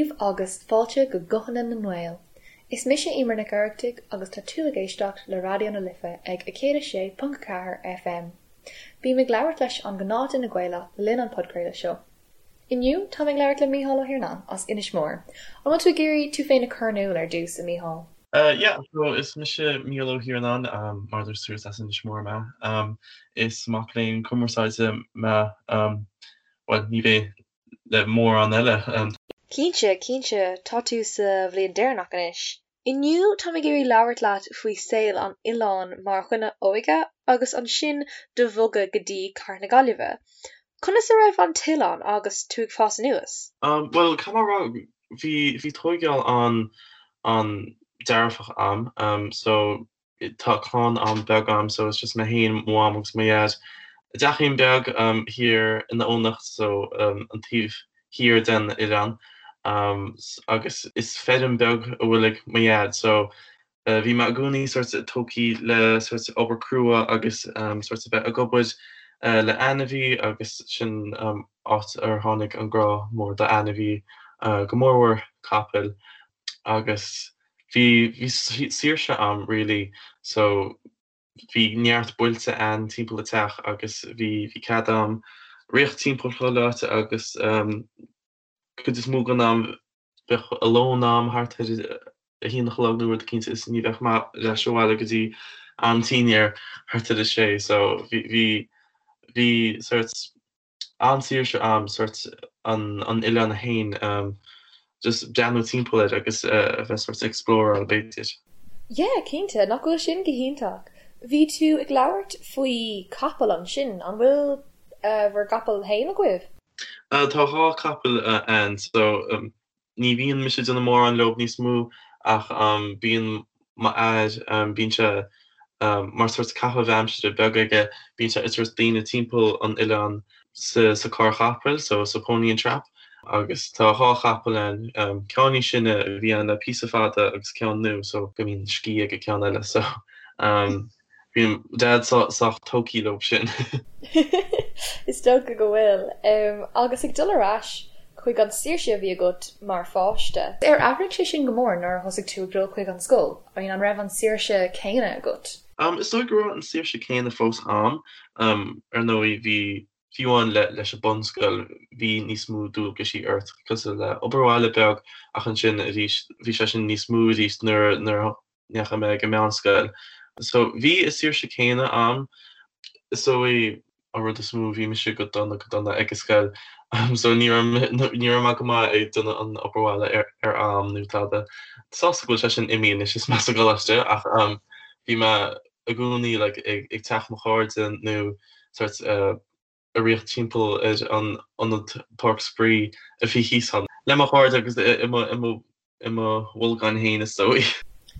daoibh agus fáilte go Guthanna na nGael. Is mise Eimear Nic Oireachtaigh agus tá tú ag éisteacht le Raidió na Life ag 106.4 FM. Bím ag labhairt leis an ghnáthduine Gaelach le linn an podchraoladh seo. Inniu táim ag labhairt le Mícheál Ó hIarnáin as Inis Mór. An bhfuil tú ag iarraidh tú féin a chur in iúl ar dtús, a Mhícheáil? Yeah, so is mise Mícheál Ó hIarnáin, mar a dúirt tú is as Inis Mór mé. Is mac léinn cumarsáide mé, bhuel, ní bheidh le mórán eile. Cinnte, cinnte, tá tú sa bhliain deireanach anois. Inniu táim ag iarraidh labhairt leat faoi saol an oileáin mar dhuine óige agus ansin do bhogadh go dtí Cathair na Gaillimhe. Conas a raibh an t-oileán agus tú ag fás anuas? Bhuel, caithfidh mé a rá, bhí, bhí tóigeáil an, an-dearfach a'm. So, Tá clann an-bheag a'm so it's just mé féin, mo mham agus mo dhaid. I dteachín beag thiar in Eoghanacht so an taobh thiar den oileán agus is feirm beag a bhfuil ag mo dhaid so bhí mé i gcónaí sort tógthaí le sort obair crua agus sort a bheith ag obair le ainmhí agus sin áit ar tháinig an grá mór do ainmhí go mórmhór capaill agus bhí bhí saoirse a'm really so bhí neart bailte a'inn timpeall an teach agus bhí bhí cead a'm rith timpeall chuile áit agus cuid is mó den am bheadh a lón a'm thart ar a haon a chlog nó rud eicínt is ní bheadh mé ar ais abhaile go dtí an-tinn thart ar a sé so bhí bhí bhí sort an-saoirse a'm sort an an oileán féin just breathnú timpeall air agus a bheith sort exploráil b'fhéidir. Yeah, cinnte, nach bhfuil sin go hiontach. Bhí tú ag labhairt faoi capall ansin, an bhfuil bhur gcapall féin agaibh? Tá dhá capall a'inn so Ní bhíonn mise ag déanamh mórán leob níos mó ach bíonn m'athair, bíonn sé mar sort caitheamh aimsire beag aige, bíonn sé ag tabhairt daoine timpeall an oileáin sa carr chapaill, so sa pony and trap, agus tá dhá chapall ann, ceann níos sine a bhí ann le píosa fada agus ceann nua so go mbíonn scíth ag an ceann eile so. Bíonn Dad sách tógthaí leo sin. Is dócha go bhfuil. Agus ag dul ar ais chuig an saoirse a bhí agat mar pháiste. Ar athraigh sé sin go mór nuair a thosaigh tú ag dul chuig an scoil? I mean, an raibh an saoirse céanna agat? Is dóigh go raibh an saoirse céanna fós a'm. Ar ndóigh, bhí, fiú amháin leis an bunscoil, bhí níos mó dualgaisí ort, cosúil le obair bhaile beag, ach ansin arís, bhí sé sin níos mó arís nuair a ndeachaigh mé ag an meánscoil. So bhí an saoirse céanna a'm. Is dóigh an rud is mó, bhí mise go dona go dona ag an scoil. So ní raibh ní raibh mé go maith ag déanamh an obair bhaile ar ar am nó tada. Sásta go bhfuil sé sin imithe anois is mé sa gcoláiste ach bhí mé i gcónaí like ag ag teach mo chairde nó sort ag rith timpeall ar an ionad páirc spraoi a bhí thíos ann le mo chairde agus i mo i mo i mo bholgán féin is dóigh.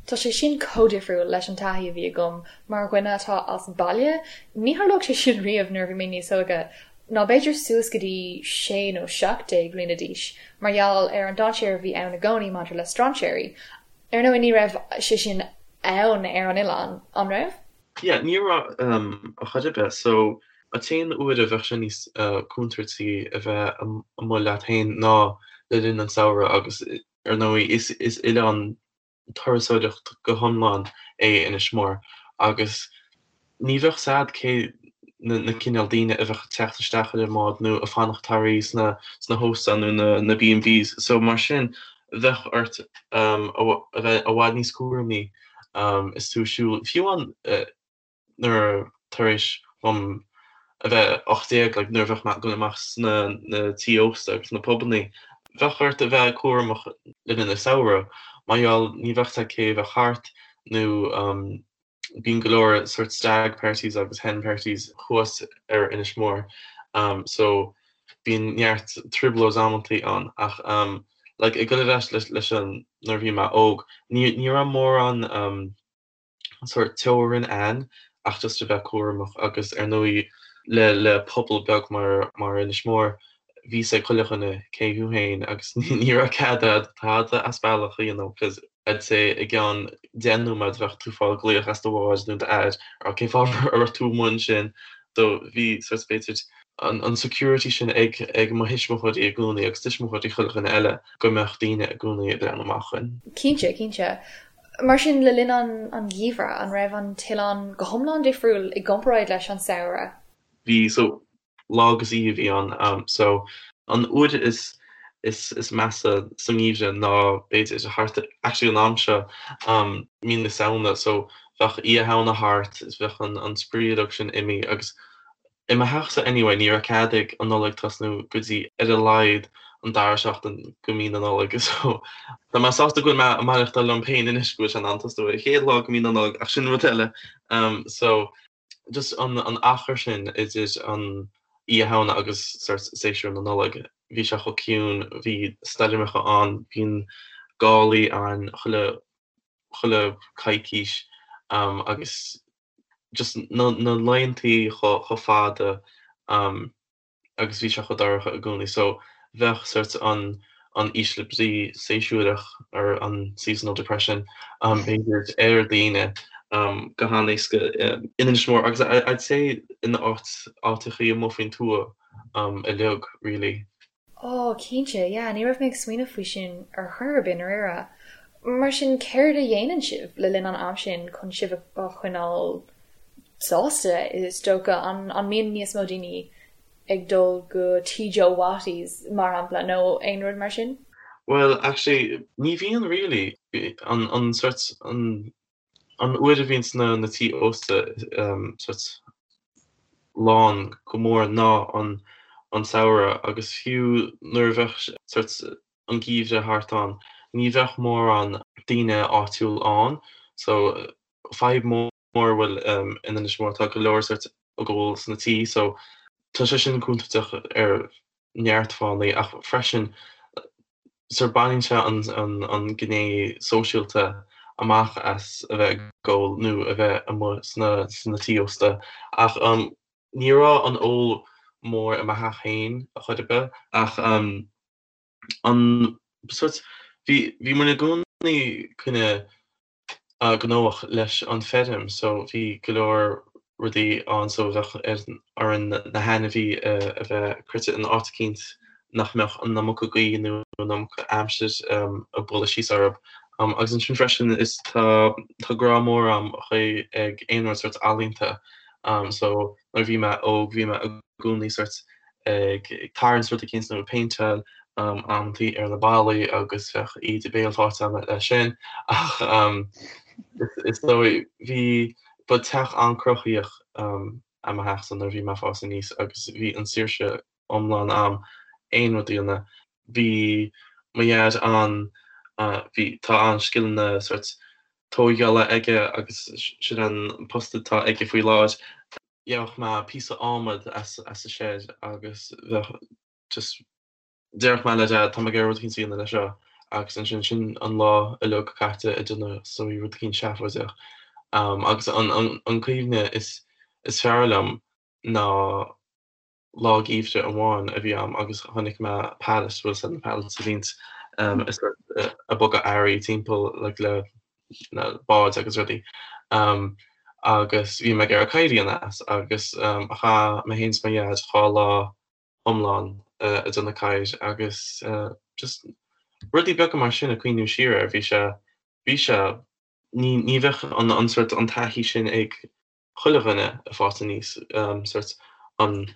Tá sé sin chomh difriúil leis an taithí a bhí agam mar dhuine atá as baile. Ní tharlódh sé sin riamh nuair a bhí mé níos óige, ná b'fhéidir suas go dtí 16 nó 17 bhliana d'aois, mar gheall ar an dainséar a bhí ann i gcónaí maidir le strainséirí. Ar ndóigh ní raibh sé sin ann ar an oileán, an raibh? Yeah, ní raibh ar chor ar bith. So, an t-aon uair a bheadh sé níos contúirtí a bheith amuigh leat féin ná le linn an samhradh agus ar ndóigh is is oileán turasóireacht go hiomlán é Inis Mór agus ní bheadh 's a'd cé na na cineál daoine a bheadh ag teacht isteach ar an mbád nó ag fanacht thar oíche sna sna hóstáin nó na na B&Bs. So mar sin bheadh ort a bheith i bhfad níos cúramaí is tú ag siúl, fiú amháin nuair tar éis dom a bheith 18, like, nuair a bheadh mé ag dul amach sna na tí ósta agus na pubannaí, bheadh ort a bheith cúramach le linn an samhradh, mar gheall ní bheadh 's a'd cé a bheadh thart nó bíonn go leor sort stag parties agus hen parties thuas ar Inis Mór so bíonn neart trioblóid amantaí ann ach like ag dul ar ais leis an nuair a bhí mé óg ní ní raibh mórán sort teorainn ann ach just a bheith cúramach agus ar ndóigh le le pobal beag mar mar Inis Mór bhí 's ag chuile dhuine cé thú féin agus ní raibh cead a'd tada as bealach a dhéanamh cos I'd say i gceann 10 nóiméad bheadh tú fáil glaoch as do mháthair nó d'athair cén fáth a raibh tú amuigh ansin so bhí sort b'fhéidir. an security sin ag ag mo thuismitheoirí i gcónaí agus tuismitheoirí chuile dhuine eile go mbeadh daoine i gcónaí ag breathnú amach dhúinn. Cinnte, cinnte. Mar sin, le linn an an gheimhridh, an raibh an t-oileán go hiomlán difriúil i gcomparáid leis an samhradh? Bhí, so lá agus oíche a bhí ann. So an uair is is is measa sa ngeimhreadh ná b'fhéidir thart actually an am seo mí na Samhna so bheadh Oíche Shamhna thart is bheadh an an spraoi uilig sin imithe agus I mo theachsa anyway ní raibh cead ag an Nollaig tosnú go dtí ar a laghad an dara seachtain go mí na Nollag so tá mé sásta go bhfuil mé ag maireachtáil liom féin anois go bhfuil sé in ann tosnú ar an chéad lá go mí na Nollag ach sin rud eile so just an an achar sin idir an Oíche Shamhna agus sort séasúr na Nollag bhí sé chomh ciúin bhí stoirmeacha ann bhí gálaí ann chuile chuile coicís agus just na laethantaí chomh fada agus bhí sé chomh dorcha i gcónaí so bheadh sort an an ísle brí séasúrach or an seasonal depression b'fhéidir ar daoine go han-éasca in Inis Mór agus I'd say in áit áiteachaí amuigh faoin tuath uilig really. Ó, cinnte, yeah, ní raibh mé ag smaoineamh faoi sin ar chor ar bith, i ndáiríre. Mar sin, céard a dhéanann sibh le linn an am sin chun sibh a choinneáil sásta, is dócha? An mbíonn níos mó daoine ag dul go Tí Joe Wattie's, mar shampla, nó aon rud mar sin? Bhuel, actually, ní bhíonn really. An, an sort, an An uair a bhíonns na tí ósta sort lán go mór ná an an samhradh agus fiú nuair a bheadh sort an geimhreadh thart ann ní bheadh mórán daoine áitiúil ann so fadhb mór a bhfuil in Inis Mór tá go leor sort ag ól sna tí so tá sé sin contúirteach ar neart fáthanna ach freisin sort baineann sé an gné sóisialta amach as a bheith ag ól nó a bheith amuigh sna tí ósta. Ach ní raibh an ól mór i mo theach féin a chor ar bith ach an sort bhí bhí muid i gcónaí kinda gnóthach leis an feirm so bhí go leor rudaí ann so bheadh orainn na hainmhí a bheith croite in áit eicínt nach mbeadh an iomarca gaoth nó an iomarca aimsir ag bualadh síos orthu. Agus ansin freisin is tá tá grá mór a'm ag aon rud sort ealaíonta so nuair a bhí mé óg bhí mé i gcónaí sort ag tarraingt rud eicínt nó ag péinteáil amantaí ar na ballaí agus bheadh íde béil faighte agam leis sin ach is dóigh bhí ba teach an-chruthaíoch é mo theachsa nuair a bhí mé ag fás aníos agus bhí an saoirse iomlán a'm aon rud a dhéanamh. Bhí mo dhaid an bhí tá an-scileanna sort tóigeála aige agus sin an post atá aige faoi láthair. Gheobhadh mé píosa adhmaid as as an shed agus bheadh just déarfadh mé le Dad tá mé ag iarraidh rud eicínt a dhéanamh leis seo agus ansin sin an lá uilig caite ag déanamh so rud eicínt seafóideach. Agus an an an cuimhne is is fearr liom ná lá geimhridh amháin a bhí a'm agus chonaic mé pallet, bhfuil a fhios a'd na pallets a bhíonns ag bogadh earraí timpeall like le na báid agus rudaí agus bhí mé ag iarraidh cabhair a dhéanamh as agus chaith mé féin is mo dhaid 2 lá iomlán ag déanamh cabhair agus just rudaí beaga mar sin ag cuimhniú siar air bhí sé bhí sé ní ní bheadh an an sort an taithí sin ag chuile dhuine ag fás aníos sort an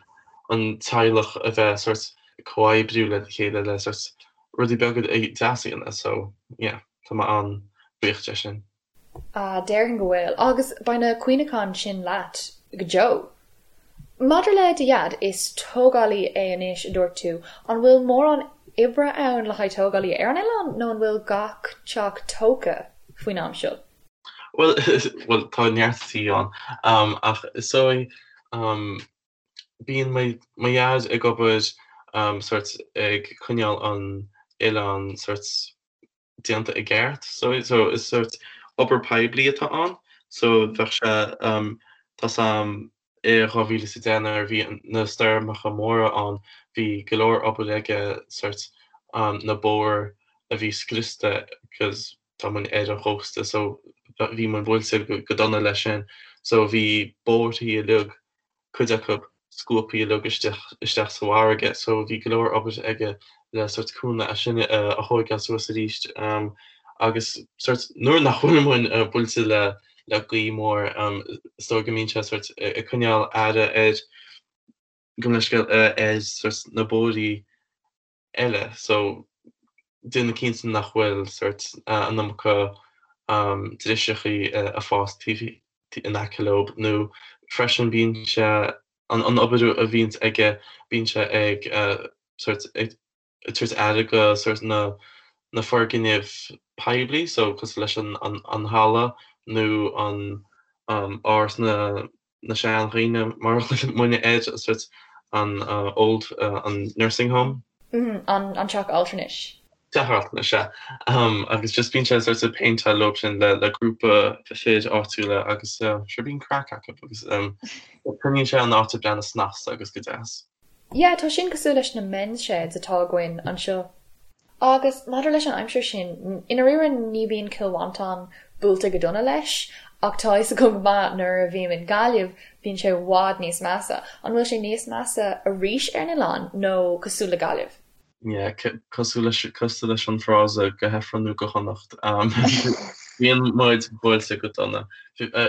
an teaghlach a bheith sort comhoibriú le chéile le sort rudaí beaga deasa a dhéanamh so yeah tá mé an-bhuíoch de sin. Ah, déarfainn go bhfuil. Agus beidh na cuimhneacháin sin leat go deo. Maidir le do dhaid, is tógálaí é anois a dúirt tú. An bhfuil mórán oibre ann le haghaidh tógálaí ar an oileán nó an bhfuil gach teach tógtha faoin am seo? Bhuel, bhuel tá neart tí ann ach is dóigh bíonn mo mo dhaid ag obair sort ag coinneáil an oileán sort déanta i gceart so so is sort obair poiblí atá ann so bheadh sé tá 's a'm i 2010 nuair a bhí na stoirmeacha móra ann bhí go leor obair aige sort na bóithre a bhí scriosta 'cause tá muid ar an chósta so bhí muid buailte go dona leis sin so bhí bóithre uilig cuid acu. scuabtha uilig isteach isteach sa bhfarraige so bhí go leor obair aige le sort cúnamh é sin a thóigeáil suas arís agus sort nuair nach bhfuil muid buailte le le gaoth mór is dóigh go mbíonn sé sort ag coinneáil aire ar gabh mo leithscéal ar sort na bóithrí eile so déanamh cinnte nach bhfuil sort an iomarca driseachaí ag fás taobh in aice leo nó freisin bíonn sé an obair a bhíonns aige bíonn sé ag sort ag tabhairt aire go sort na na foirgnimh poiblí so cosúil leis an an halla nó an áras na na seandhaoine mar a ghlaonn muidne air, sort an old, an nursing home. An teach altranais. Teach altranais, sea. Agus just bíonn sé sort ag péinteáil leo sin le le grúpa fir áitiúla agus sure bíonn craic acu agus coinníonn sé an áit ag breathnú snasta agus go deas. Yeah, tá sin cosúil leis na men's sheds atá againn anseo. Agus maidir leis an aimsir sin, i ndáiríre ní bhíonn Cill Mhantáin buailte go dona leis, ach tá a fhios agam go maith nuair a bhím in Gaillimh, bíonn sé i bhfad níos measa. An bhfuil sé níos measa arís ar an oileán nó cosúil le Gaillimh? Yeah, cosúil leis, cosúil leis an frása go hIfreann nó go hAnnacht. Bíonn muid buailte go dona.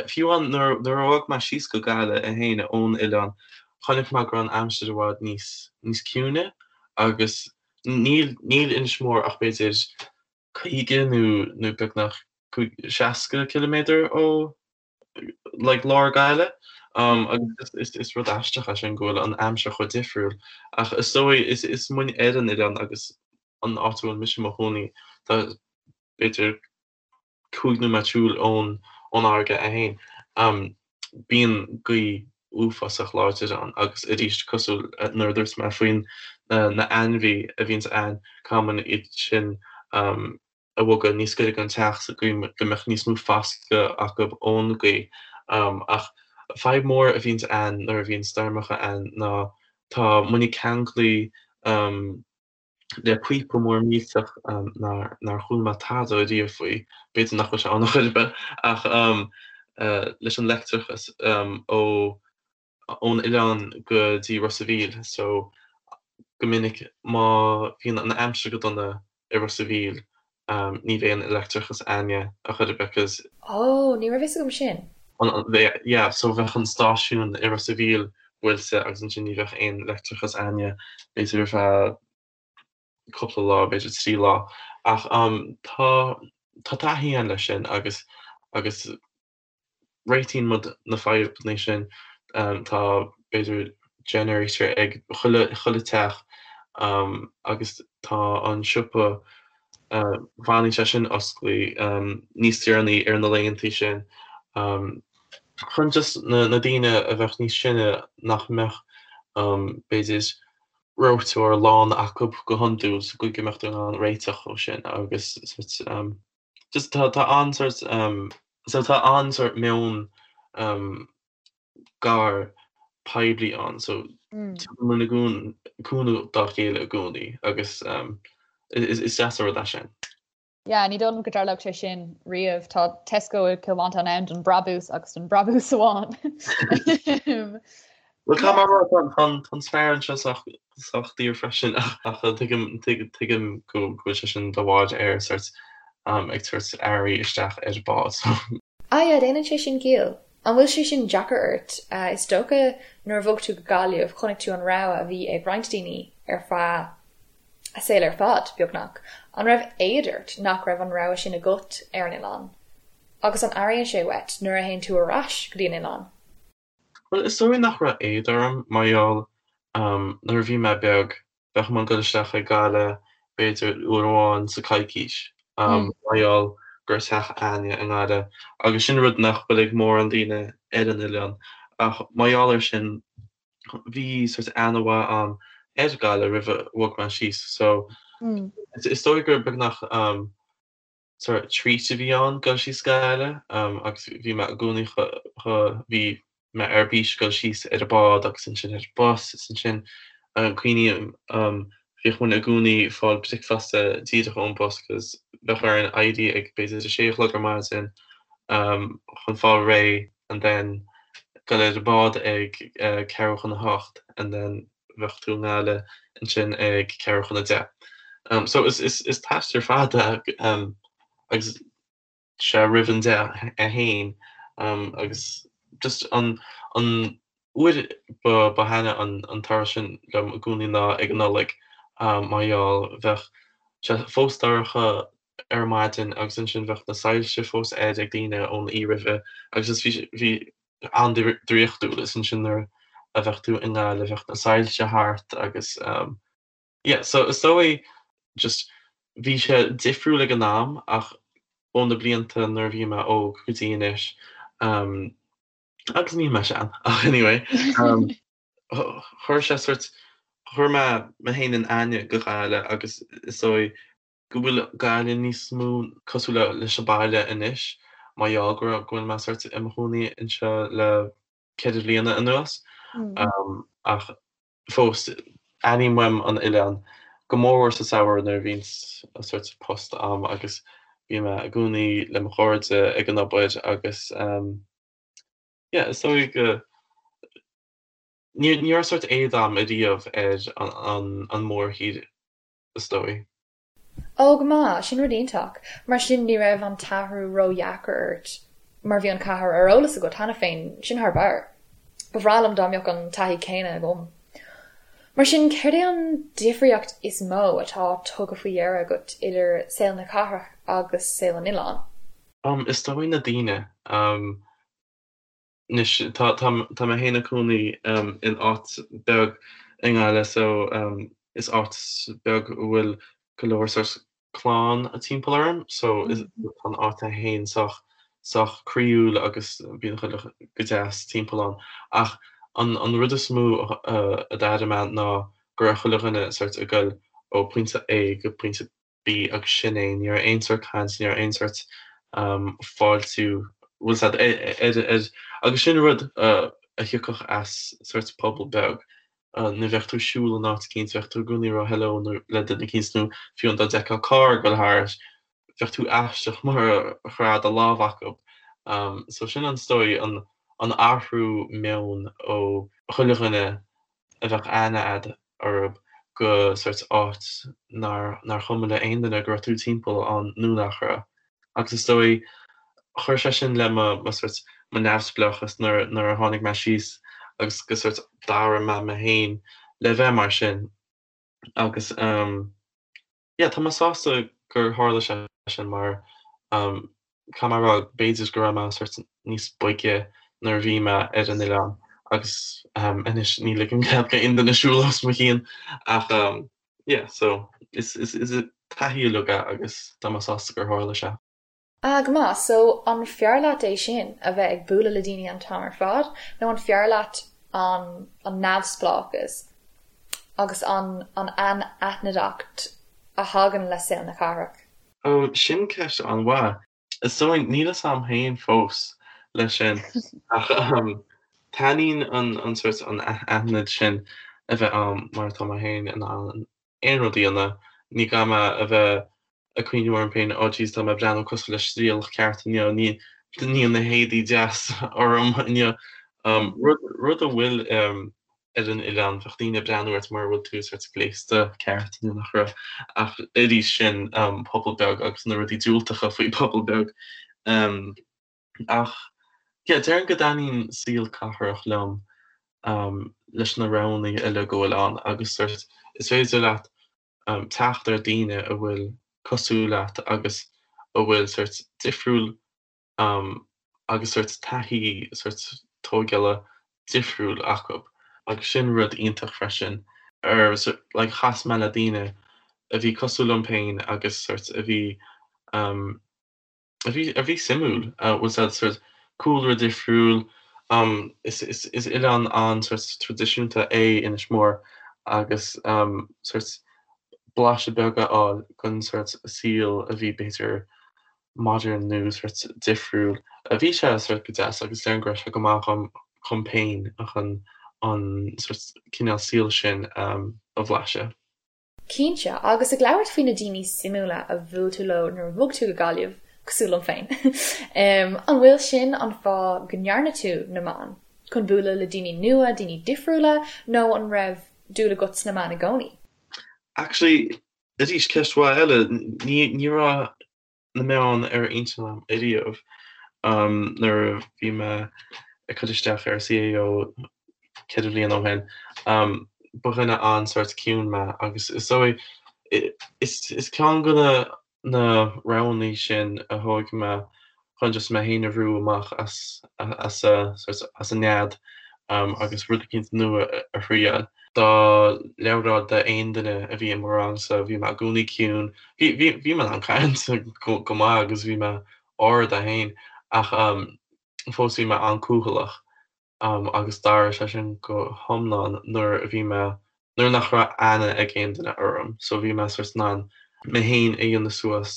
Fiú amháin nuair nuair a bhog mé síos go Gaillimh é féin ón oileán, chonaic mé go raibh an aimsir i bhfad níos níos ciúine agus Níl níl Inis Mór ach b'fhéidir 50 nó nó beagnach 60 ciliméadar ó like lár Gaillimh agus is is rud aisteach é sin go bhfuil an aimsir chomh difriúil ach is dóigh is is muid ar an oileán agus an áit a bhfuil mise i mo chónaí tá b'fhéidir 5 nóiméad siúil ón ón fharraige é féin. Bíonn gaoth uafásach láidir ann agus arís cosúil nuair a dúirt mé faoin na ainmhí a bhíonns ann, caithfidh muid iad sin a bhogadh níos gaire don teach sa gcaoi go mbeadh níos mó foscadh acu ón gaoth. Ach fadhb mór a bhíonns ann nuair a bhíonn stoirmeacha ann ná tá muid ceanglaithe le píopa mór millteach nár chuala mé tada riamh faoi, b'fhéidir nach bhfuil sé ann ar chor ar bith, ach leis an leictreachas ó ón oileán go dtí Ros a' Mhíl so go minic má bhíonn an aimsir go dona i Ros a' Mhíl ní bheidh an leictreachas a'inne ar chor ar bith 'cause Ó, ní raibh fhios agam sin. Yeah, so bheadh an stáisiún i Ros a' Mhíl buailte agus ansin ní bheadh aon leictreachas a'inne b'fhéidir ar feadh cúpla lá, b'fhéidir 3 lá. Ach tá tá taithí a'inn leis sin agus agus réitíonn muid na fadhbanna sin. Tá, b'fhéidir, generator ag chuile, chuile teach agus tá an siopa, fanann sé sin osclaí níos deireanaí ar na laethanta sin chun just na daoine a bheadh níos sine nach mbeadh, b'fhéidir, reoiteoir lán acu go hiondúil sa gcaoi go mbeadh in ann réiteach ó sin agus sort Just tá tá an sort so tá an sort meon gar poiblí ann so tugann muid i gcónaí cúnamh dá chéile i gcónaí agus is is deas an rud é sin. Yeah, ní dóigh liom go dtarlódh sé sin riamh. Tá Tesco i Cill Mhantáin ann don brabús agus don brabús amháin. Bhuel tá mar rud tá an spéir anseo sách sách daor freisin ach tuigim tuigim go bhfuil sé sin de bharr ar sort ag tabhairt earraí isteach ar bád so. Ah yeah, déanann sé sin ciall. An bhfuil sé sin deacair ort? Is dócha nuair a bhog tú go Gaillimh chonaic tú an rogha a bhí ag roinnt daoine ar feadh a saol ar fad, beagnach. An raibh éad ort nach raibh an rogha sin agat ar an oileán? Agus an airíonn sé uait nuair a théann tú ar ais go dtí an oileán? Bhuel, is dóigh nach raibh éad orm mar gheall nuair a bhí mé beag, bheadh muid ag dul isteach ag Gaillimh b'fhéidir uair amháin sa coicís mar gheall go raibh teach a'inne i nGaillimh agus sin rud nach bhfuil ag mórán daoine ar an oileán ach mar gheall ar sin bhí sort aithne mhaith a'm ar Ghaillimh roimh a bhog mé síos so is dóigh gur beagnach sort treat a bhí ann dul síos go Gaillimh agus bhí mé i gcónaí bhí mé ar bís dul síos ar an bád agus ansin ar an bus is ansin cuimhním bhíodh muid i gcónaí ag fáil bricfeasta díreach ón bus cos bheadh orainn éirí ag b'fhéidir a sé a chlog ar maidin chun fáil réidh and then. dul ar an bád ag ceathrú chun a hocht and then bheadh tú i nGaillimh ansin ag ceathrú chun a deich. So is is is t-aistear fada agus sé roimh an deich é féin agus just an an uair ba ba thaitne an an turas sin liom i gcónaí ná ag an Nollaig mar gheall bheadh sé fós dorcha ar maidin agus ansin bheadh na soilse fós air ag daoine ón oíche roimhe agus is bhí bhí an-draíochtúil is ansin nuair a bheadh tú i nGaillimh bheadh na soilse thart agus yeah so is dóigh just bhí sé difriúil ag an am ach ó na blianta nuair a bhí mé óg go dtí anois agus níl mé sean ach anyway chuir sé sort chuir mé mé féin in aithne go Gaillimh agus is dóigh go bhfuil Gaillimh níos mó cosúil leis an baile anois mar gheall go raibh go bhfuil mé sort i mo chónaí anseo le ceithre bliana anuas. Ach fós, airím uaim an oileán, go mórmhór sa samhradh nuair a bhíonn sort post a'm agus bíonn mé i gcónaí le mo chairde ag an obair agus yeah is dóigh go ní ní raibh sort éad a'm ariamh ar an an mórthír is dóigh. Ó, go maith, sin rud iontach. Mar sin ní raibh an t-athrú ró-dheacair ort mar bhí an cathair ar eolas agat cheana féin, sin thar barr. Ba bhreá liom dá mbeadh an taithí céanna agam. Mar sin, céard é an difríocht is mó atá tugtha faoi dheara agat idir saol na cathrach agus saol an oileáin? Is dóigh na daoine. Anois, tá, tá, tá mé féin i cónaí in áit beag i nGaillimh so is áit beag a bhfuil go leor sort clann timpeall orm so is, tá an áit é féin sách, sách croíúil agus bíonn chuile go deas timpeall ann. Ach an, an rud is mó a d'airigh mé ná go raibh chuile dhuine sort ag goil ó pointe A go pointe B agus sin é, ní raibh aon sórt caint, ní raibh aon sórt fáiltiú, bhfuil 's a'd, ar, ar, agus sin rud a thiocfadh as sórt pobal beag, nuair bheadh tú ag siúl in áit eicínt, bheadh tú i gcónaí ag rá hello nó le duine eicínt nó fiú dá bhfeicfeá carr ag dul thart, bheadh tú aisteach mura raibh do lámh acu. So sin an, is dóigh, an, an athrú meoin ó chuile dhuine a bheadh aithne a'd orthub go sórt áit nár nár chuma le aon duine go raibh tú timpeall ann nó nach raibh. Agus is dóigh, chuir sé sin le mo mo sórt mo neamhspleáchas nuair nuair a tháinig mé síos agus go sórt d'athraigh mé mé féin le bheith mar sin. Agus ehm yeah tá mé sásta gur tharla sé sin mar caithfidh mé a rá b'fhéidir go raibh mé sórt níos boige nuair a bhí mé ar an oileán agus anois ní ligim cead go aon duine siúl os mo chionn ach yeah so is is is taithí uilig é agus tá mé sásta gur tharla sé. Ah, go maith. So, an fearr leat é sin, a bheith ag bualadh le daoine an t-am ar fad, nó an fearr leat an an neamhspleáchas agus an an anaithnideacht a thagann le saol na cathrach? Oh, sin ceist an-mhaith. Is dóigh, níl fhios a'm féin fós leis sin, ach taitníonn an an sórt an aithnid sin a bheith a'm mar tá mé féin in ann aon rud a dhéanamh, ní gá mé a bheith ag cuimhniú orm féin, oh jeez tá mé ag breathnú cosúil le striallach ceart inniu, ní níl na héadaí deas orm inniu. Rud rud a bhfuil ar an oileán, bheadh daoine ag breathnú ort mura bhfuil tú sort gléasta ceart nó nach raibh. Ach arís sin pobal beag agus na rudaí diúltacha faoi pobal beag. Ach yeah, déarfainn go dtaitníonn saol cathrach liom leis na roghanna eile go bhfuil ann agus sort is féidir leat teacht ar daoine a bhfuil cosúil leat agus a bhfuil sort difriúil agus sort taithí sort tógála difriúil acu agus sin rud iontach freisin ar like chas mé le daoine a bhí cosúil liom féin agus sort a bhí a bhí a bhí suimiúil, bhfuil 's a'd sort cúlra difriúil, is is is oileán an-sort traidisiúnta é Inis Mór agus sort blaiseadh beag a fháil den sort saol a bhí b'fhéidir modern nó sort difriúil. Bhí sé sort go deas agus déarfainn go raibh sé go maith dhom dhom féin chun an sort cineál saoil sin a bhlaiseadh. Cinnte, agus ag labhairt faoi na daoine suimiúla a bhuail tú leo nuair a bhog tú go Gaillimh, cosúil liom féin, an bhfuil sin an fáth go ndearna tú na meáin? chun bualadh le daoine nua, daoine difriúla, nó an raibh dúil agat sna meáin i gcónaí? Actually, arís, ceist mhaith eile. Ní, ní raibh na meáin ar intinn agam ariamh nuair a bhí mé ag cur isteach ar CAO 4 bhliain ó shin. Ba dhuine an-sórt ciúin mé agus is dóigh is ceann de na na roghanna sin a thóg mé chun just mé féin a bhrú amach as as as an nead agus rud eicínt nua a thriail. Dá labhróinn d'aon duine a bhí i mo rangsa, bhí mé i gcónaí ciúin. Bhí bhí bhí mé in ann caint go maith agus bhí mé ard é féin ach fós bhí mé an-cúthaileach agus d'athraigh sé sin go hiomlán nuair a bhí mé nuair nach raibh aithne ag aon duine orm so bhí mé sort in ann mé féin a dhéanamh suas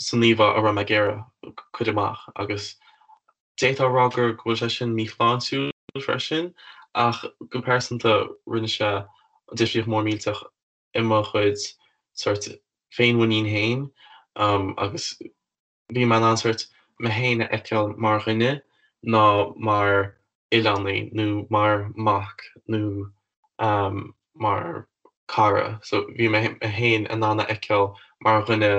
san íomhá a raibh mé ag iarraidh cur amach agus d'fhéadfá a rá gur go bhfuil sé sin míshláintiúil freisin ach go pearsanta rinne sé difríocht mór millteach i mo chuid sort féinmhuinín féin agus bhí mé in ann sort mé féin a fheiceáil mar dhuine ná mar oileánaí nó mar mac nó mar cara. So bhí mé féin in ann a fheiceáil mar dhuine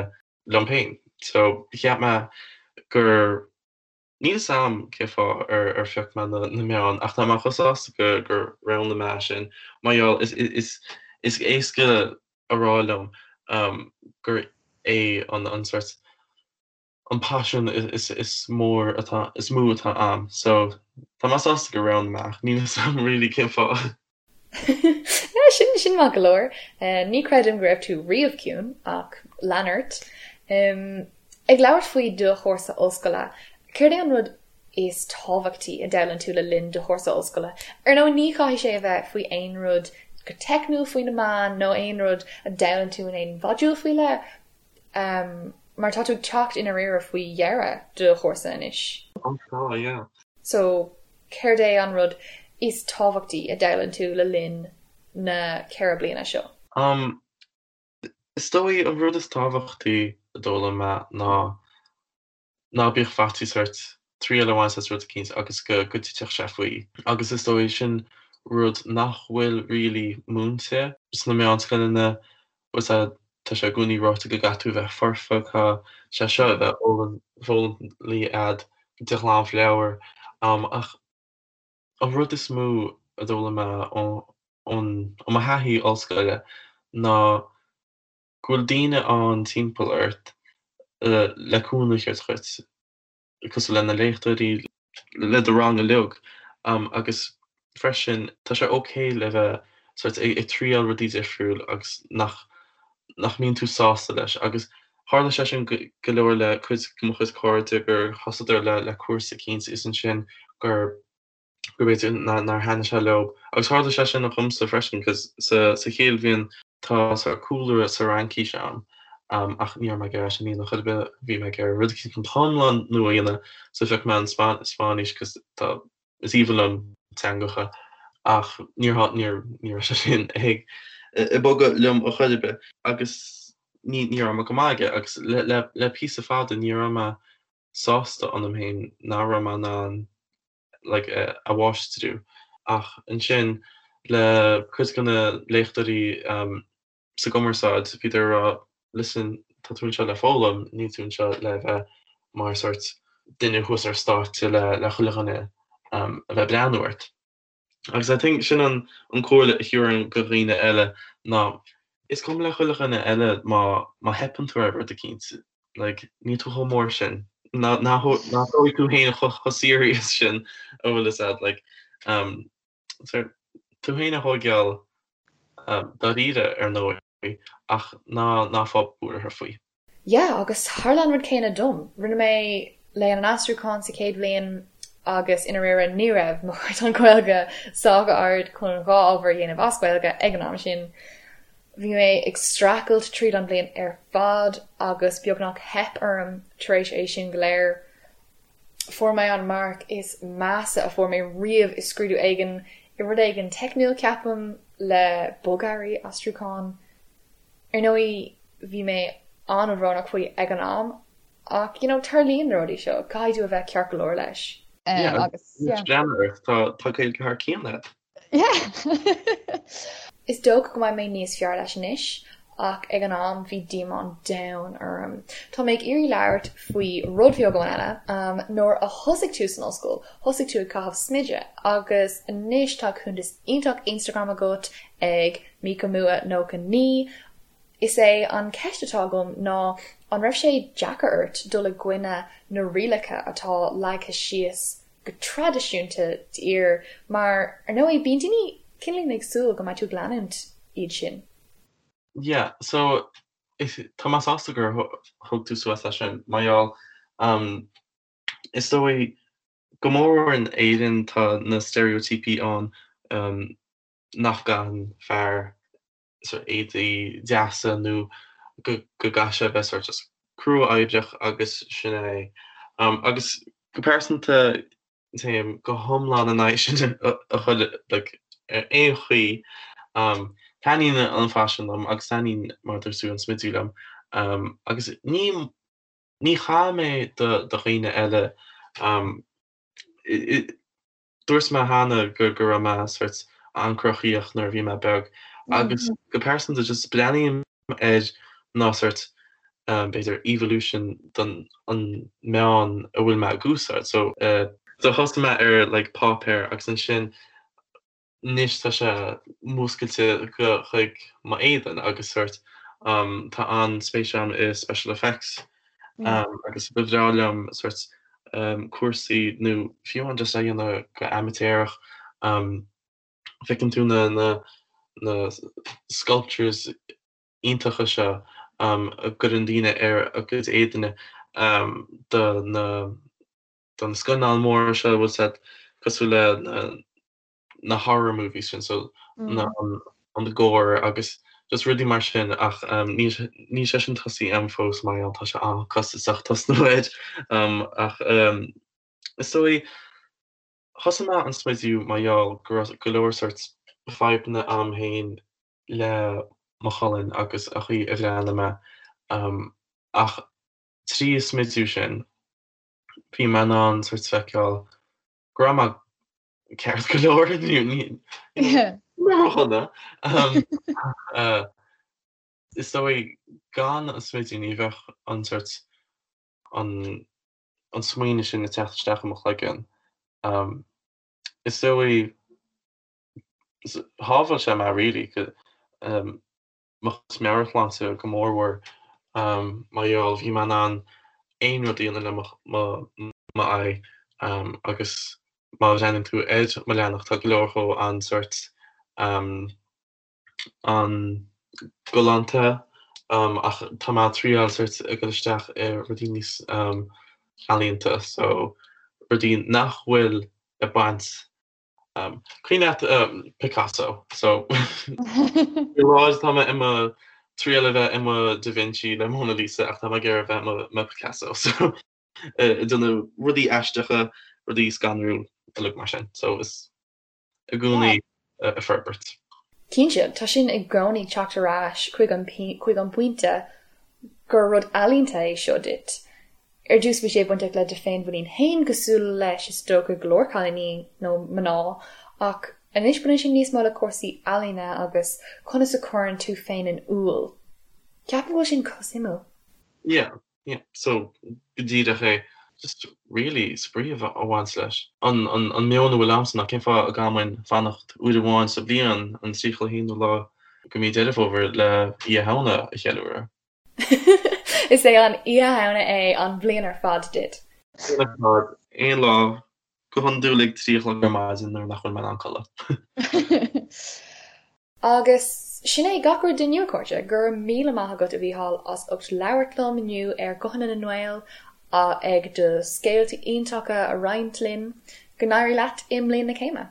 liom féin. So cheap mé gur, níl 'fhios a'm cé fáth ar ar phioc mé na na meáin ach tá mé chomh sásta go gur roghnaigh mé sin mar gheall is is is éasca a rá liom gur é an an sort an paisean is mór atá, is mó atá a'm. So, tá mé sásta gur roghnaigh mé ach níl 'fhios a'm really cén fáth. Yeah, sin, sin maith go leor. Ní creidim go raibh tú riamh ciúin, ach lean ort. Ag labhairt faoi do chúrsa ollscoile, céard é an rud is tábhachtaí a d'fhoghlaim tú le linn do chúrsa ollscoile? Ar ndóigh, ní chaithfidh sé a bheith faoi aon rud go teicniúil faoi na meáin nó aon rud a d'fhoghlaim tú in aon mhodúl faoi leith, Mar tá tú ag teacht i ndáiríre faoi dheireadh do chúrsa anois. Ó tá, yeah. So, céard é an rud is tábhachtaí a d'fhoghlaim tú le linn na 4 bliana seo? Um, is dóigh an rud is tábhachtaí a d'fhoghlaim mé ná ná bíodh faitíos ort triail a bhaint as rud eicínt agus go go dtitfeadh sé faoi. Agus is dóigh sin rud nach bhfuil really múinte sna meánscoileanna, bhfuil a fhios a'd, tá sé i gcónaí ráite go gcaithfidh tú a bheith foirfe, caithfidh sé seo a bheith foghlamtha a'd de ghlanmheabhair. Ach an rud is mó a d'fhoghlaim mé ó ó mo thaithí ollscoile ná go bhfuil daoine ann timpeall ort le cúnamh a thabhairt dhuit, cosúil le na léachtóirí, le do rang uilig, agus freisin tá sé ok le bheith sort ag triail rudaí difriúil agus nach nach mbíonn tú sásta leis agus tharla sé sin go leor le cuid de mo chuid cairde gur thosaíodar le le cúrsa eicínt is ansin gur go b'fhéidir nár thaitnigh sé leo. Agus tharla sé sin dhomsa freisin cos sa sa chéad bhliain tá sort cúlra sa Fhraincis a'm ach ní raibh mé ag iarraidh sin a dhéanamh chor ar bith, bhí mé ag iarraidh rud eicínt go hiomlán nua a dhéanamh so phioc mé an Spáinnis cos tá is aoibhinn liom teangacha ach níor níor ní raibh sé sin ag ag bogadh liom a chor ar bith agus ní ní raibh mé go maith aige agus le le le píosa fada ní raibh mé sásta ionam féin nach raibh mé in ann like a mháistriú. Ach ansin le cuid de na léachtóirí sa gcumarsáid, bhíodar ag rá listen, tá tú anseo le foghlaim, níl tú anseo le bheith mar sort duine thuas ar stáitse le le chuile dhuine a bheith ag breathnú ort. Agus I think sin an an comhairle a thabharfainn go dhaoine eile ná is cuma le chuile dhuine eile má má theipeann tú ar rud eicínt, like níl tú chomh mór sin, ná ná ná tóg tú féin chomh chomh serious sin a bhfuil fhios a'd like um so tú féin a thóigeáil um dáiríre ar ndóigh ach ná ná fág buartha faoi. Yeah, agus tharla an rud céanna dom. Rinne mé Léann an Aistriúcháin sa chéad bhliain agus i ndáiríre ní raibh mo chaighdeán Gaeilge sách ard chun 2 ábhar a dhéanamh as Gaeilge ag an am sin. Bhí mé ag streachailt tríd an bhliain ar fad agus beagnach theip orm tar éis é sin go léir. Fuair mé an marc is measa a fuair mé riamh i scrúdú éigin, i rud éigin teicniúil ceapaim, le bogearraí aistriúcháin. Ar ndóigh, bhí mé an-bhrónach faoi ag an am, ach you know, tarlaíonn na rudaí seo, caithfidh tú a bheith ceart go leor leis. Agus yeah. Breathnaigh ort, tá tá Gaeilge thar cionn agat. Yeah! Is dócha go mbeidh mé níos fearr leis anois, ach ag an am bhí díomá an domhain orm. Tá mé ag iarraidh labhairt faoi rud beag amháin eile. Nuair a thosaigh tú san ollscoil, thosaigh tú ag caitheamh smideadh agus anois tá cuntas iontach Instagram agat ag Mikamua 99. Is é an ceist atá agam ná an raibh sé deacair ort dul i gcoinne na rialacha atá leagtha síos go traidisiúnta d'fhir mar, ar ndóigh, bíonn daoine cineáilín ag súil go mbeidh tú ag leanúint iad sin. Yeah, so tá mé sásta gur thug tú suas leis sin, mar gheall, is dóigh, go mór mhór in Éirinn tá na steiréitíopaí ann nach gcaitheann fear sort éadaí deasa nó go gcaithfidh sé a bheith sort just crua-oibreach agus sin é. Agus go pearsanta téim go hiomlán in aghaidh sin a chuile like ar aon chaoi. Taitníonn an faisean liom agus taitníonn mar a dúirt tú an smidiú liom agus ní ní chaill mé do dhaoine eile. Dúirt mé cheana go raibh mé sort an-chruthaíoch nuair a bhí mé beag agus go pearsanta just breathnaím air ná sort b'fhéidir evolution don an meán a bhfuil mé ag úsáid. So so thosaigh mé ar like páipéar agus ansin anois tá sé múscailte go chuig m'éadan agus sort tá an-spéis agam i special effects agus ba bhreá liom sort cúrsaí nó fiú amháin just a dhéanamh go amaitéarach feiceann tú na na na sculptures iontacha seo a gcuireann daoine ar a gcuid éadaine do na do na scannáin mhóra seo bhfuil siad cosúil le na na horror movies sin so na an gore agus just rudaí mar sin ach níl níl sé sin tosaithe agam fós mar gheall tá sé an-costasach tosnú air ach is dóigh thosaigh mé an smidiú mar gheall go raibh go leor sort fadhbanna agam féin le mo cholainn agus a chaoi a bhreathnaigh mé ach trí an smidiú sin bhí mé in ann sort feiceáil go raibh mé ceart go leor ródhona. Is dóigh gan an smidiú ní bheadh an sort an an smaoineamh sin ag teacht isteach i mo chloigeann. Is dóigh shábháil sé mé really mo chuid meabhairshláinte go mórmhór mar gheall bhí mé in ann aon rud a dhéanamh le m'aghaidh agus má bhreathnaíonn tú ar mo leathanach tá go leor dhó an-sort an-ghalánta ach tá mé ag triáil sort ag dul isteach i rudaí níos ealaíonta so rudaí nach bhfuil ag baint Cuimhin leat Picasso? So faoi láthair tá mé i mo triail a bheith i mo Da Vinci le Mona Lisa ach tá mé ag iarraidh a bheith i mo Picasso. So ag déanamh rudaí aisteacha, rudaí scanrúil uilig mar sin. So is i gcónaí ag forbairt. Cinnte, tá sin i gcónaí ag teacht ar ais chuig an chuig an bpointe gur rud ealaíonta é seo duit. Ar dtús bhí sé bainteach le do féinmhuinín féin cosúil leis is dócha go leor cailíní nó mná ach anois baineann sé níos mó le cúrsaí ealaíne agus conas a chuireann tú féin in iúl. Ceapaim go bhfuil sin chomh suimiúil. Yeah. Yeah, so go díreach é. Just really spraoi a bhaint leis. An an meon a bhfuil a'msa ná cén fáth a gcaithfinn fanacht uair amháin sa bhliain, an 31ú lá de mhí Deireadh Fómhair le Oíche Shamhna a cheiliúradh. Is é an Oíche Shamhna é an bhliain ar fad duit. Bliain ar fad, aon lá, go hiondúil ag 3 a chlog ar maidin nuair nach bhfuil mé in ann codladh. Agus sin é gach rud inniu, a chairde. Go raibh míle maith agat, a Mhícheáil, as ucht labhairt liom inniu ar Ghuthanna na nGael, ag do scéalta iontacha a roinnt linn. Go n-éirí leat i mbliain na céime.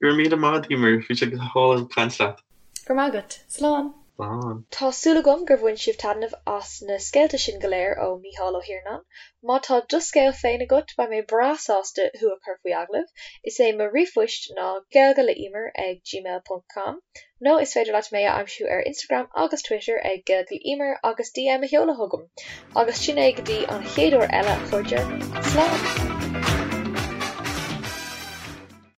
Go raibh míle maith agat, Emer. Bhí sé go hálainn caint leat. Go raibh maith agat. Slán. Slán. Tá súil agam gur bhain sibh taitneamh as na scéalta sin go léir ó Mícheál Ó hIarnáin. Má tá do scéal féin agat, beidh mé breá sásta thú a chur faoi agallamh. Is é mo ríomhphoist ná gaeilgeleEmer ag gmail ponc com nó is féidir leat mé a aimsiú ar Instagram agus Twitter ag gaeilgeleEmer agus DM a sheoladh chugam. Agus sin é go dtí an chéad uair eile, a chairde. Slán!